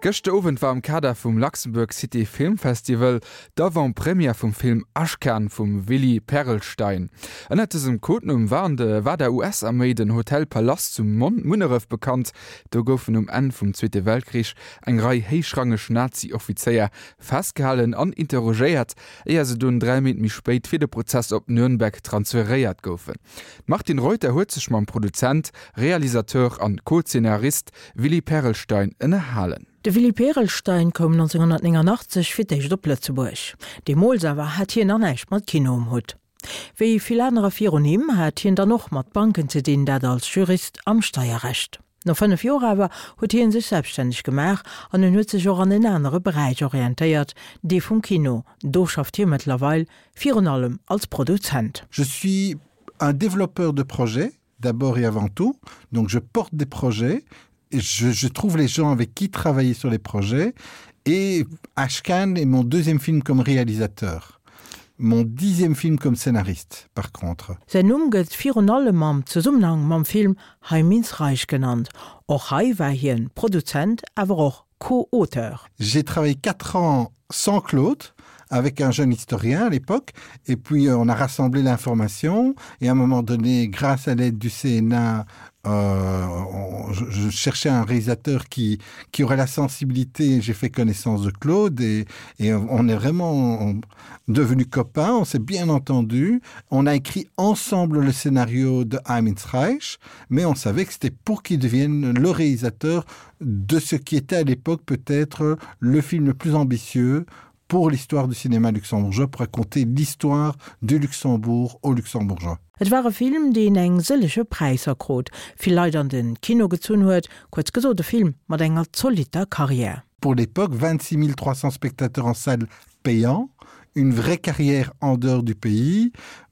Gëschter Owend war am Kader vum Luxembourg City Film Festival d'Avant-Première vum Film Ashkan vum Willy Perelstein. Ënnert dësem Codenumm war an de war der US-Arméi den Hotel Palace zu Munneref bekannt. Do goufen um Enn vum Zweete Weltkrich eng Rei héichrangeg Nazi-Offizéier festgehalen an interrogéiert, éier se dunn 3 Méint méi spéit fir de Prozess op Nürnberg transferéiert goufen. D'Martine Reuter huet sech mam Produzent, Realisateur an Co-Zeenarist Willy Perelstein ënnerhalen. De Willy Perelstein koum 1989 fir d'éischt op Lëtzebuerg. Deemools awer hat hien nach näischt mat Kino um Hutt. Wéi vill anerer virun him hat hien dann och mat Banken ze dinn, dat als Jurist am Steierrecht. No 5 Joer awer huet hien sech selbststänneg gemaach an en huet sech och an en anere Beräich orientéiert, dee vum Kino. Do schafft hie mëttlerweil virun allem als Produzent. Je suis un développeur de projets d'abord et avant tout, donc je porte des projets, je, je trouve les gens avec qui travailler sur les projets et Ashkan est mon deuxième film comme réalisateur. Mon dixième film comme scénariste par contre. Säin Numm gëtt virun allem am Zesummenhang mam Film Heim ins Reich genannt. Och hei war hien Produzent, awer och Co-Auteur. J'ai travaillé 4 ans sans Claude avec un jeune historien à l'époque et puis euh, on a rassemblé l'information et à un moment donné grâce à l'aide du CNA euh, on, je, je cherchais un réalisateur qui, qui aurait la sensibilité j'ai fait connaissance de Claude et, et on est vraiment devenu copain on s'est bien entendu on a écrit ensemble le scénario de Reich mais on savait que c'était pour qu'il devienne le réalisateur de ce qui était à l'époque peut-être le film le plus ambitieux pour l'histoire du cinéma luxembourgeois pour raconter l'histoire du Luxembourg au luxembourgeois. Et war e Film, deen eng sëllege Präisser krut, vill Leit an de Kino gezunn huet, kuerz gesot e Film mat enger zolitter Karriär. Pour l'époque 26 300 spectateurs en salle payant, une vraie carrière en dehors du pays,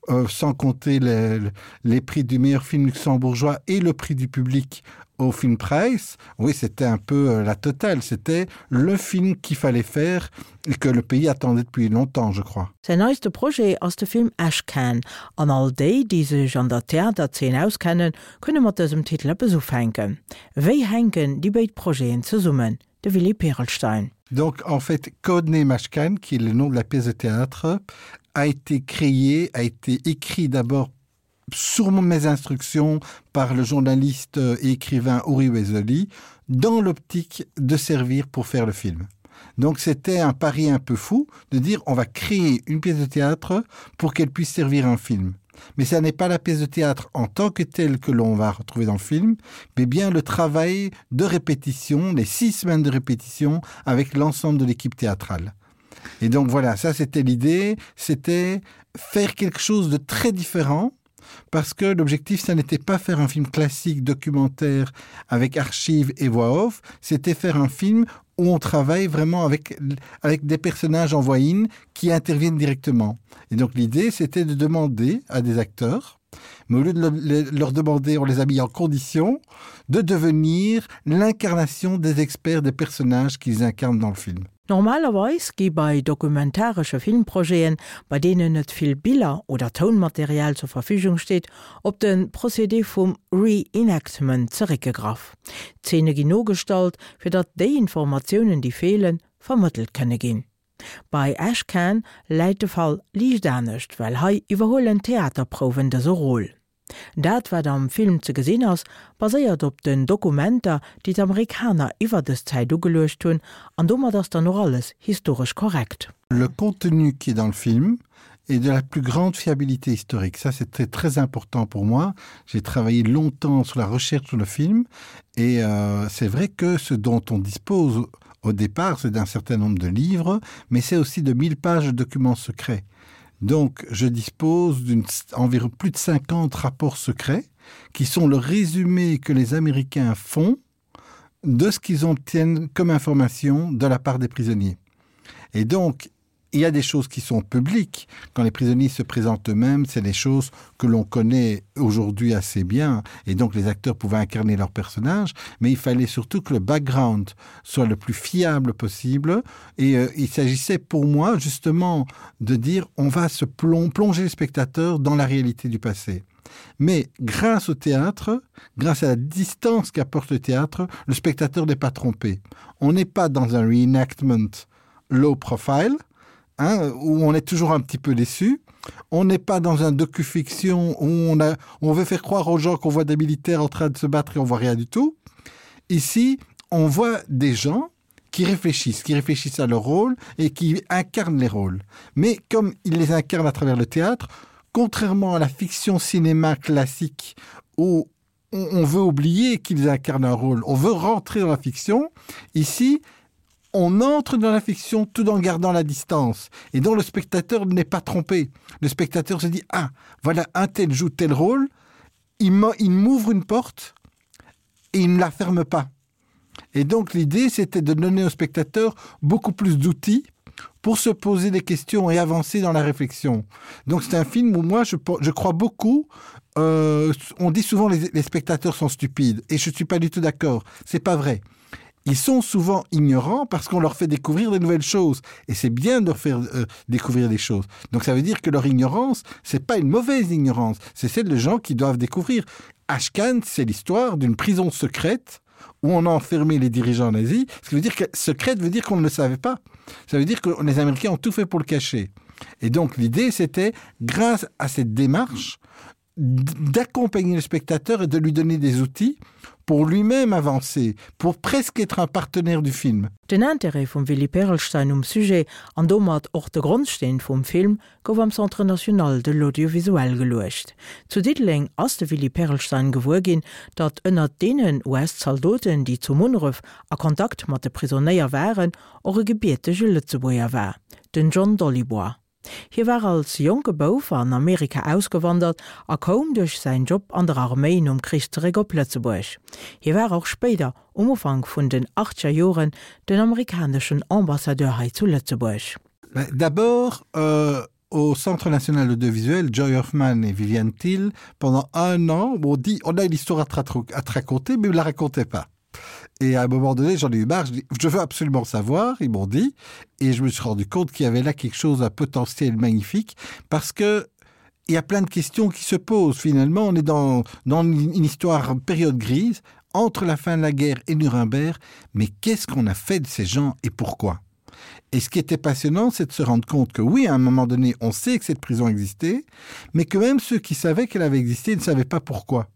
euh, sans compter les, les prix du meilleur film luxembourgeois et le prix du public au film Price. Oui, c'était un peu euh, la totale, c'était le film qu'il fallait faire et que le pays attendait depuis longtemps, je crois. Säin neiste Projet ass de Film Ashcan, an all déi, déi sech an der Theaterzeen auskennen, kënne mat dësem Titel eppes ufänken. Wéi hänken déi béid Projeten zesummen? De Willy Perelstein. Donc en fait Codename Ashcan, qui est le nom de la pièce de théâtre, a été créé, a été écrit d'abord sur mes instructions par le journaliste et écrivain Uri Weseli dans l'optique de servir pour faire le film. Donc c'était un pari un peu fou de dire on va créer une pièce de théâtre pour qu'elle puisse servir un film. Mais ça n'est pas la pièce de théâtre en tant que telle que l'on va retrouver dans le film, mais bien le travail de répétition, les six semaines de répétition avec l'ensemble de l'équipe théâtrale. Et donc voilà, ça c'était l'idée, c'était faire quelque chose de très différent parce que l'objectif ça n'était pas faire un film classique documentaire avec archives et voix off, c'était faire un film où on travaille vraiment avec, avec des personnages en voix in qui interviennent directement. Et donc l'idée c'était de demander à des acteurs, mais au lieu de le, leur demander, on les a mis en condition de devenir l'incarnation des experts des personnages qu'ils incarnent dans le film. Normalerweis gi bei dokumentaresche Filmprojeten, bei deenen net vill Biller oder Tounmaterial zur Verfügung steet, op de Procédé vum Re-Enactment zeréckgegraff. D'Zeene ginn nogestallt, fir datt déi Informatiounen, déi feelen, vermëttelt kënne ginn. Bei Ashcan läit de Fall liicht anescht, well hei iwwerhuelen d'Theaterprouwen dëse Rôle. Dat, wat am Film ze gesinn ass, baséiert op den Dokumenter, déi d'Amerikaner iwwer dës Zäit ugeluecht hunn, an domat ass dann och alles historesch korrekt. Le contenu qui est dans le film est de la plus grande fiabilité historique. Ça, c'était très important pour moi. J'ai travaillé longtemps sur la recherche sur le film et euh, c'est vrai que ce dont on dispose au départ, c'est d'un certain nombre de livres, mais c'est aussi de 1000 pages de documents secrets. Donc je dispose d'une environ plus de 50 rapports secrets qui sont le résumé que les Américains font de ce qu'ils obtiennent comme information de la part des prisonniers. Et donc, il y a des choses qui sont publiques. Quand les prisonniers se présentent eux-mêmes, c'est des choses que l'on connaît aujourd'hui assez bien et donc les acteurs pouvaient incarner leur personnage, mais il fallait surtout que le background soit le plus fiable possible et euh, il s'agissait pour moi justement de dire on va se plom plonger le spectateur dans la réalité du passé. Mais grâce au théâtre, grâce à la distance qu'apporte le théâtre, le spectateur n'est pas trompé. On n'est pas dans un reenactment low profile, hein, où on est toujours un petit peu déçu. On n'est pas dans un docufiction où on, a, on veut faire croire aux gens qu'on voit des militaires en train de se battre et on voit rien du tout. Ici, on voit des gens qui réfléchissent, qui réfléchissent à leur rôle et qui incarnent les rôles. Mais comme ils les incarnent à travers le théâtre, contrairement à la fiction cinéma classique où on, on veut oublier qu'ils incarnent un rôle, on veut rentrer dans la fiction, ici, on entre dans la fiction tout en gardant la distance et dont le spectateur n'est pas trompé. Le spectateur se dit ah voilà un tel joue tel rôle, il m'ouvre une porte et il ne la ferme pas. Et donc l'idée c'était de donner au spectateur beaucoup plus d'outils pour se poser des questions et avancer dans la réflexion. Donc c'est un film où moi je, je crois beaucoup euh, on dit souvent les, les spectateurs sont stupides et je suis pas du tout d'accord, c'est pas vrai. Ils sont souvent ignorants parce qu'on leur fait découvrir des nouvelles choses et c'est bien de leur faire euh, découvrir des choses. Donc ça veut dire que leur ignorance, c'est pas une mauvaise ignorance, c'est celle de gens qui doivent découvrir. Ashcan, c'est l'histoire d'une prison secrète où on a enfermé les dirigeants nazis, ce qui veut dire que secrète veut dire qu'on ne le savait pas. Ça veut dire que les Américains ont tout fait pour le cacher. Et donc l'idée c'était grâce à cette démarche d'accompagner le spectateur et de lui donner des outils pour lui-même avancer, pour presque être un partenaire du film. Den Intérêt vum Willy Perelstein um Sujet an domat och de Grondsteen vum Film gouf am Centre national de l'audiovisuel geluecht. Zu Diddeleng ass de Willy Perelstein gewuer ginn, datt ënnert deenen US-Zaldoten, déi zu Munneref a Kontakt mat de Prisonéier waren, och e gebiertege Lëtzebuerger war, den John Dolibois. Hie war als jonke Bouf an Amerika ausgewandert a koum duerch säin Job an der Arméi nom Krich zeréck op Lëtzebuerg. Hie war och spéider, um Ufank vun den achtzeger Joren, den amerikaneschen Ambassadeur hei zu Lëtzebuerg. D'abord euh, au Centre national audiovisuel, Joy Hoffman et Viviane Thiel, pendant un an, on dit on a une histoire à te, à te raconter, mais ne la racontez pas. Et à un moment donné, j'en ai eu marre, je, dis, je veux absolument savoir, ils m'ont dit, et je me suis rendu compte qu'il y avait là quelque chose à potentiel magnifique, parce que il y a plein de questions qui se posent finalement. On est dans, dans une histoire période grise entre la fin de la guerre et Nuremberg, mais qu'est-ce qu'on a fait de ces gens et pourquoi? Et ce qui était passionnant, c'est de se rendre compte que oui, à un moment donné, on sait que cette prison existait, mais que même ceux qui savaient qu'elle avait existé ne savaient pas pourquoi.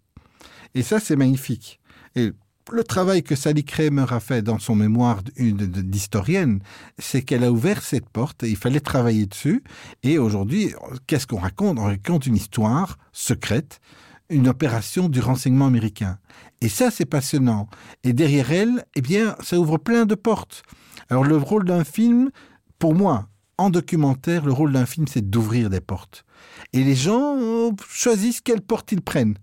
Et ça, c'est magnifique. Et le travail que Sally Kramer a fait dans son mémoire d'historienne, c'est qu'elle a ouvert cette porte et il fallait travailler dessus. Et aujourd'hui, qu'est-ce qu'on raconte On raconte une histoire secrète, une opération du renseignement américain. Et ça, c'est passionnant. Et derrière elle, eh bien, ça ouvre plein de portes. Alors le rôle d'un film, pour moi, en documentaire, le rôle d'un film, c'est d'ouvrir des portes. Et les gens euh, choisissent quelle porte ils prennent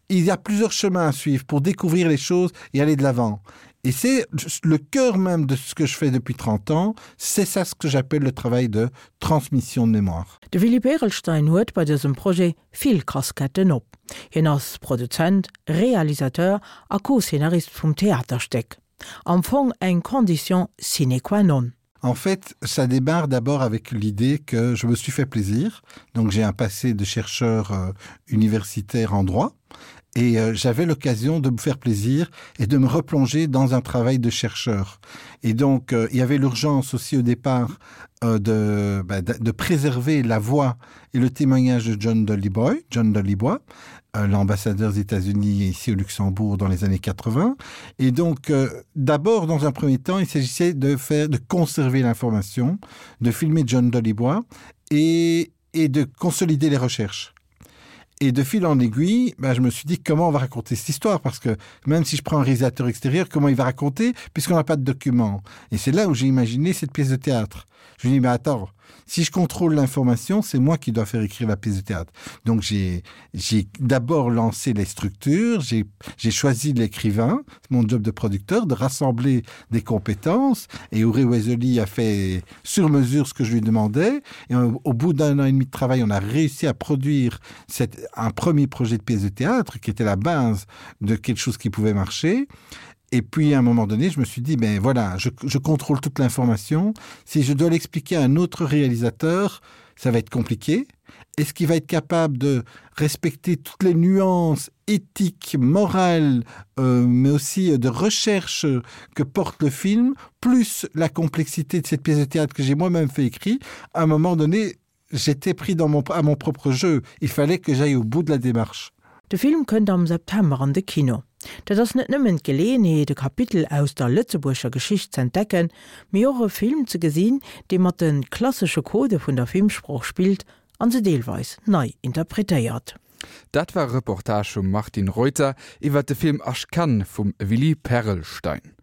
il y a plusieurs chemins à suivre pour découvrir les choses et aller de l'avant. Et c'est le cœur même de ce que je fais depuis 30 ans, c'est ça ce que j'appelle le travail de transmission de mémoire. De Willy Perelstein huet bei dësem Projet vill Casquetten op. Hien ass Produzent, Realisateur a Co-Szenarist vum Theaterstéck. Am Fong eng Condition sine qua non. En fait, ça démarre d'abord avec l'idée que je me suis fait plaisir. Donc j'ai un passé de chercheur euh, universitaire en droit et euh, j'avais l'occasion de me faire plaisir et de me replonger dans un travail de chercheur. Et donc euh, il y avait l'urgence aussi au départ euh, de, bah, de, de préserver la voix et le témoignage de John Dollyboy, John Dollyboy, euh, l'ambassadeur des États-Unis ici au Luxembourg dans les années 80. Et donc euh, d'abord dans un premier temps, il s'agissait de faire de conserver l'information, de filmer John Dollyboy et, et de consolider les recherches. Et de fil en aiguille, ben, je me suis dit comment on va raconter cette histoire parce que même si je prends un réalisateur extérieur, comment il va raconter puisqu'on n'a pas de documents. Et c'est là où j'ai imaginé cette pièce de théâtre. Je me dis mais attends, si je contrôle l'information, c'est moi qui dois faire écrire la pièce de théâtre. Donc j'ai d'abord lancé les structures, j'ai choisi l'écrivain, mon job de producteur, de rassembler des compétences et Auré Wesley a fait sur mesure ce que je lui demandais. Et au, au bout d'un an et demi de travail, on a réussi à produire cette, un premier projet de pièce de théâtre qui était la base de quelque chose qui pouvait marcher. Et puis à un moment donné, je me suis dit ben voilà, je, je contrôle toute l'information. Si je dois l'expliquer à un autre réalisateur, ça va être compliqué. Est-ce qu'il va être capable de respecter toutes les nuances éthiques, morales, euh, mais aussi de recherche que porte le film, plus la complexité de cette pièce de théâtre que j'ai moi-même fait écrit, à un moment donné, j'étais pris dans mon, à mon propre jeu. Il fallait que j'aille au bout de la démarche. De Film kënnt am September an de Kino. Dat ass net nëmmen d'Geleeënheet, e Kapitel aus der lëtzebuerger Geschicht z'entdecken, mee och e Film ze gesinn, dee mat de klassesche Codë vun der Filmsprooch spillt an se deelweis nei interpretéiert. Dat war e Reportage vum Martine Reuter iwwer de Film Ashcan vum Willy Perelstein.